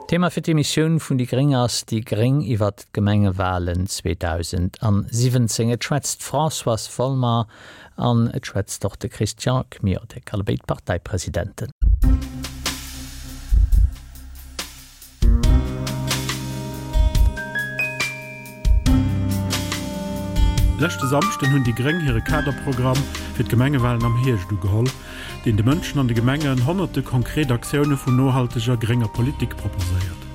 Thema fir d'Emissioun vun déi gréng ass Déi gréng iwwert d'Gemengewalen 2017. Et schwätzt d'Françoise Folmer an et schwätzt och de Christian Kmiotek, allebéid Parteipresidenten. Leschte Samschden hunn déi gréng hire Kaderprogramm fir d'Gemengewalen am Hierscht ugeholl, deen de Mënschen an de Gemengen honnerte konkret Aktioune vun nohalteger grénger Politik proposéiert.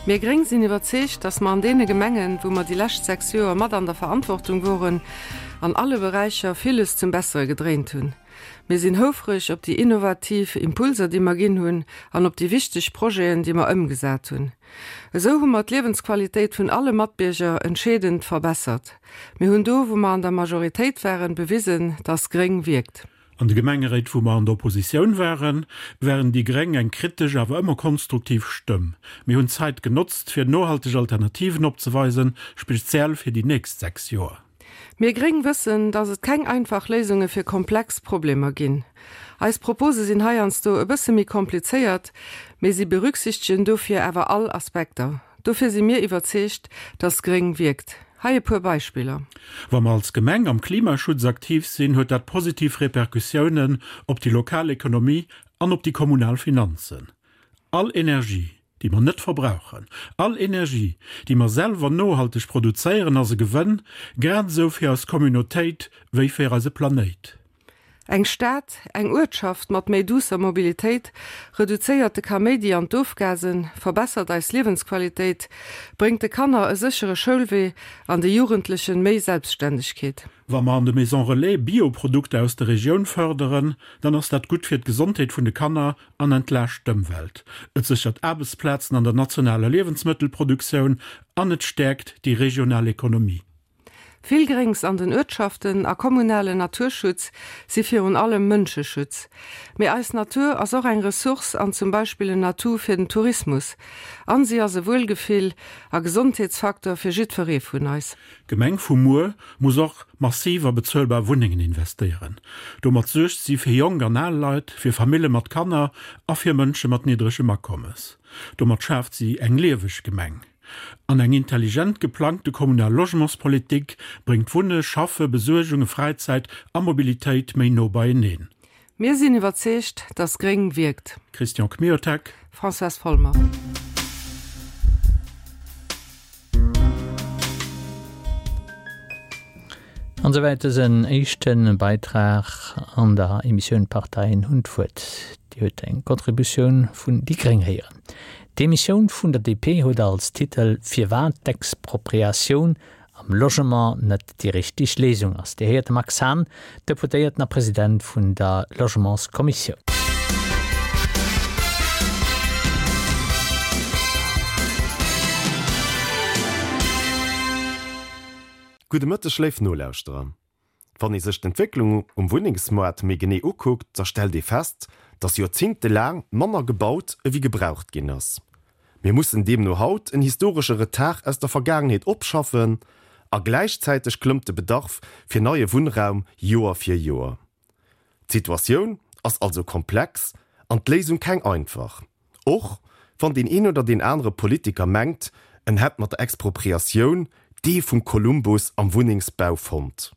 Mir gréng sinn iwwerzeegt, dass mer an deene Gemengen, wou mer déi lescht 6 Joer mat an der Verantwortung woren, an alle Beräicher villes zum Bessere gedréint hunn. Mir sinn houfreg op déi innovativ Impulser, déi mer ginn hunn an op déi wichteg Projeten, déi mer ëmgesat hunn. Esou hu mer d'Liewensqualitéit vun alle Matbierger entscheedend verbessert. Mir hunn do, wou mer an der Majoritéit waren, bewisen, dass gréng wierkt. An de Gemengeréit, wou mer an der Oppositioun waren, waren déi gréng eng kritesch, awer ëmmer konstruktiv Stëmm. Mir hunn d'Zait genotzt, fir nohalteg Alternativen opzeweisen, speziell fir déi nächst 6 Joer. Mir gréng wëssen, dass et keng einfach Léisunge fir komplex Problemer ginn. Eis Propose sinn heiansdo e bësse méi komplizéiert, mee si berücksichtegen dofir awer all Aspekter. Dofir si mir iwwerzeegt, dass gréng wierkt. Hei e puer Beispiller. Wa mer als Gemeng am Klimaschutz aktiv sinn, huet dat positiv Repercussiounen op déi lokal Ekonomie an op déi kommunal Finanzen. All Energie, déi mer net verbrauchen, all Energie, déi mer selwer nohalteg produzéieren, ass e Gewënn, grad esou fir eis Communautéit wéi fir eise Planéit. Eng Stad, eng Uertschaft mat méi duusser Mobilitéit reduzéiert de Kaméidi an d'Ofgasen, verbessert eis Liewensqualitéit, bréngt de Kanner e séchere Schoulwee an de Jugendlechen méi Selbstständegkeet. Wa mer an de Maisons Relais Bio-Produkter aus der Regioun fërderen, dann ass dat gutt fir d'Gesondheet vun de Kanner an entlaascht d'Ëmwelt. Et séchert Aarbechtsplazen an der nationaler Liewensmëttelproduktioun an et stäerkt déi regional Ekonomie. Vill Gréngs an den Uertschaften a kommunalen Naturschutz si virun allem Mënscheschutz. Mee eis Natur ass och eng Ressource an zum Beispill en Atout fir den Tourismus. An si ass e Wuelgefill a Gesondheetsfaktor fir jiddweree vun eis. D'Gemeng vu muer muss och massiv a bezuelbar Wunnengen investéieren. Domat suergt si fir jonk an al Leit, fir Famille mat Kanner a fir Mënsche mat niddregem Akommes. Domat schaaft si eng lieweg Gemeng. An eng intelligent geplangte kommunal Logementspolitik bréngt Wunne, Schaffe, Besuergunge, Fräizäit a Mobilitéit méi no beieneen. Mir sinn iwwerzeegt, dass gréng wierkt. Christian Kmiotek. Françoise Folmer. An esouwäit dësen éischte Beitrag an der Emissioun D'Parteien hunn d'Wuert. Dir huet eng Contributioun vun déi gréng héieren. D'Emissioun vun der DP huet als Titel Firwat d'Expropriatioun am Logement net déi richteg Léisung ass. Dir héiert de Max Hahn, Deputéierten a President vun der Logementskommissioun. Gudde Mëtteg léif Nolauschterer. Wann ee sech d'Entwécklung um Wunnengsmoart méi genee ukuckt, da stellt ee fest, dass joerzéngtelaang manner gebaut ewéi gebraucht ginn ass. Mir mussen deemno haut en historesche Retard aus der Vergaangenheet opschaffen a gläichzäiteg klëmmt de Bedarf fir neie Wunnraum Joer fir Joer. D'Situatioun ass also komplex an d'Léisung keng einfach, och wann deen een oder deen anere Politiker mengt, en hätt mat der Expropriatioun d'Ee vum Kolumbus am Wunnengsbau fonnt.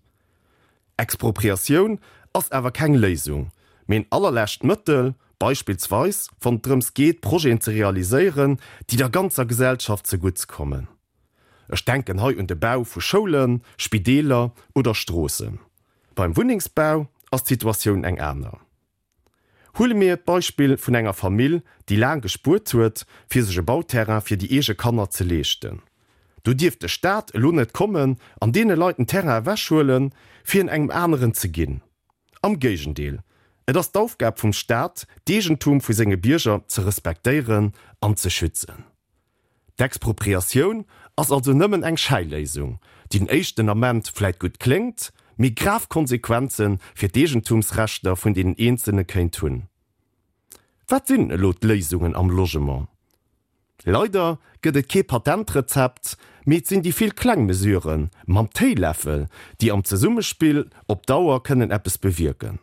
Expropriatioun ass awer keng Léisung, mee en allerlescht Mëttel, beispillsweis wann et drëms geet, Projeten ze realiséieren, déi der ganzer Gesellschaft zegutts kommen. Ech denken hei un de Bau vu Schoulen, Spideeler oder Stroossen. Beim Wunnengsbau ass d'Situatioun eng aner. Huele mir d'Beispill vun enger Famill, déi laang gespuert huet, fir sech e Bauterrain fir déi eege Kanner ze leeschten. Do dierf de Staat elo net kommen an deene Leit den Terrain ewechhuelen, fir en engem aneren ze ginn. Am Géigendeel, et ass d'Aufgab vum Staat, d'Eegentum vu senge Bierger ze respektéieren an ze schützen. D'Expropriatioun ass also nëmmen eng Schäiléisung, déi den éischten Ament vläit gutt kléngt, mee grav Konsequenze fir d'Eegentumsrechter vun deenen Eenzelne kéint hunn. Wat sinn elo d'Léisungen am Logement? Leider gëtt et kee Patentrezept, mee et sinn déi vill kleng Mesurë mam Téiläffel, déi am Zesummespill op Dauer kënnen eppes bewierken.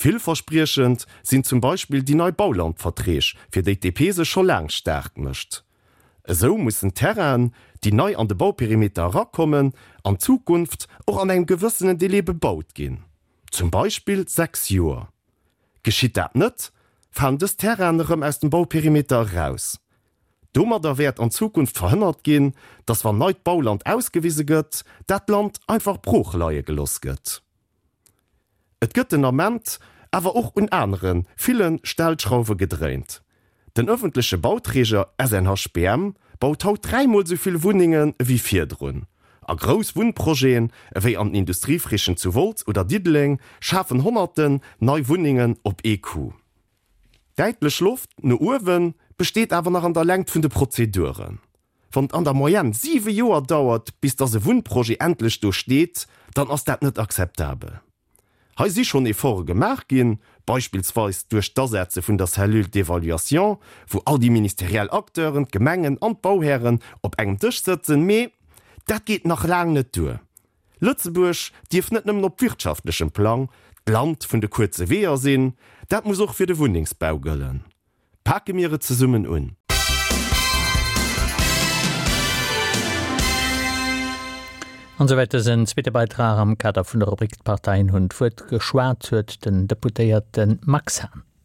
Villverspriechend sinn zum Beispill déi nei Baulandverträg, fir déi d'DP sech scho laang staark mécht. Esou mussen Terrainen, déi nei an de Bauperimeter erakommen, an Zukunft och an engem gewëssenen Délai bebaut ginn, zum Beispill 6 Joer. Geschitt dat net, falen dës Terrainen erëm aus dem Bauperimeter eraus. Domadder wäert an Zukunft verhënnert ginn, dass wann neit Bauland ausgewise gëtt, dat Land einfach brooch leie geloss gëtt. Et gëtt den Ament awer och un anere ville Stellschrauwe gedréint. Den ëffentleche Bauträger SNHBM baut haut dräimol esou vill Wunnenge wéi virdrun. A grouss Wunnprojeten ewéi an den Industriefrichen zu Wolz oder Diddeleng schafen honnerten nei Wunnengen op ee Coup. Däitlech Loft no uewe besteet awer nach an der Längt vun de Prozeduren. Wann et an der Moyenne 7 Joer dauert, bis dass e Wunnprojet endlech do steet, dann ass dat net akzeptabel. Hei si schonn Efforte gemaach ginn, beispillsweis duerch d'Asetze vun der Cellule d'évaluation, wou all déi ministeriell Acteuren, d'Gemengen an d'Bauhären op engem Dësch sëtzen, mee dat geet nach laang net duer. Lëtzebuerg dierf net nëmmen op wirtschaftlechem Plang d'Land vun de kuerze Weeër sinn, dat muss och fir de Wunnengsbau gëllen. Pake mir et zesummen un! An esouwäit dësen zweete Beitrag am Kader vun der Rubrik D'Parteien hunn d'Wuert. Geschwat huet den Deputéierte Max Hahn.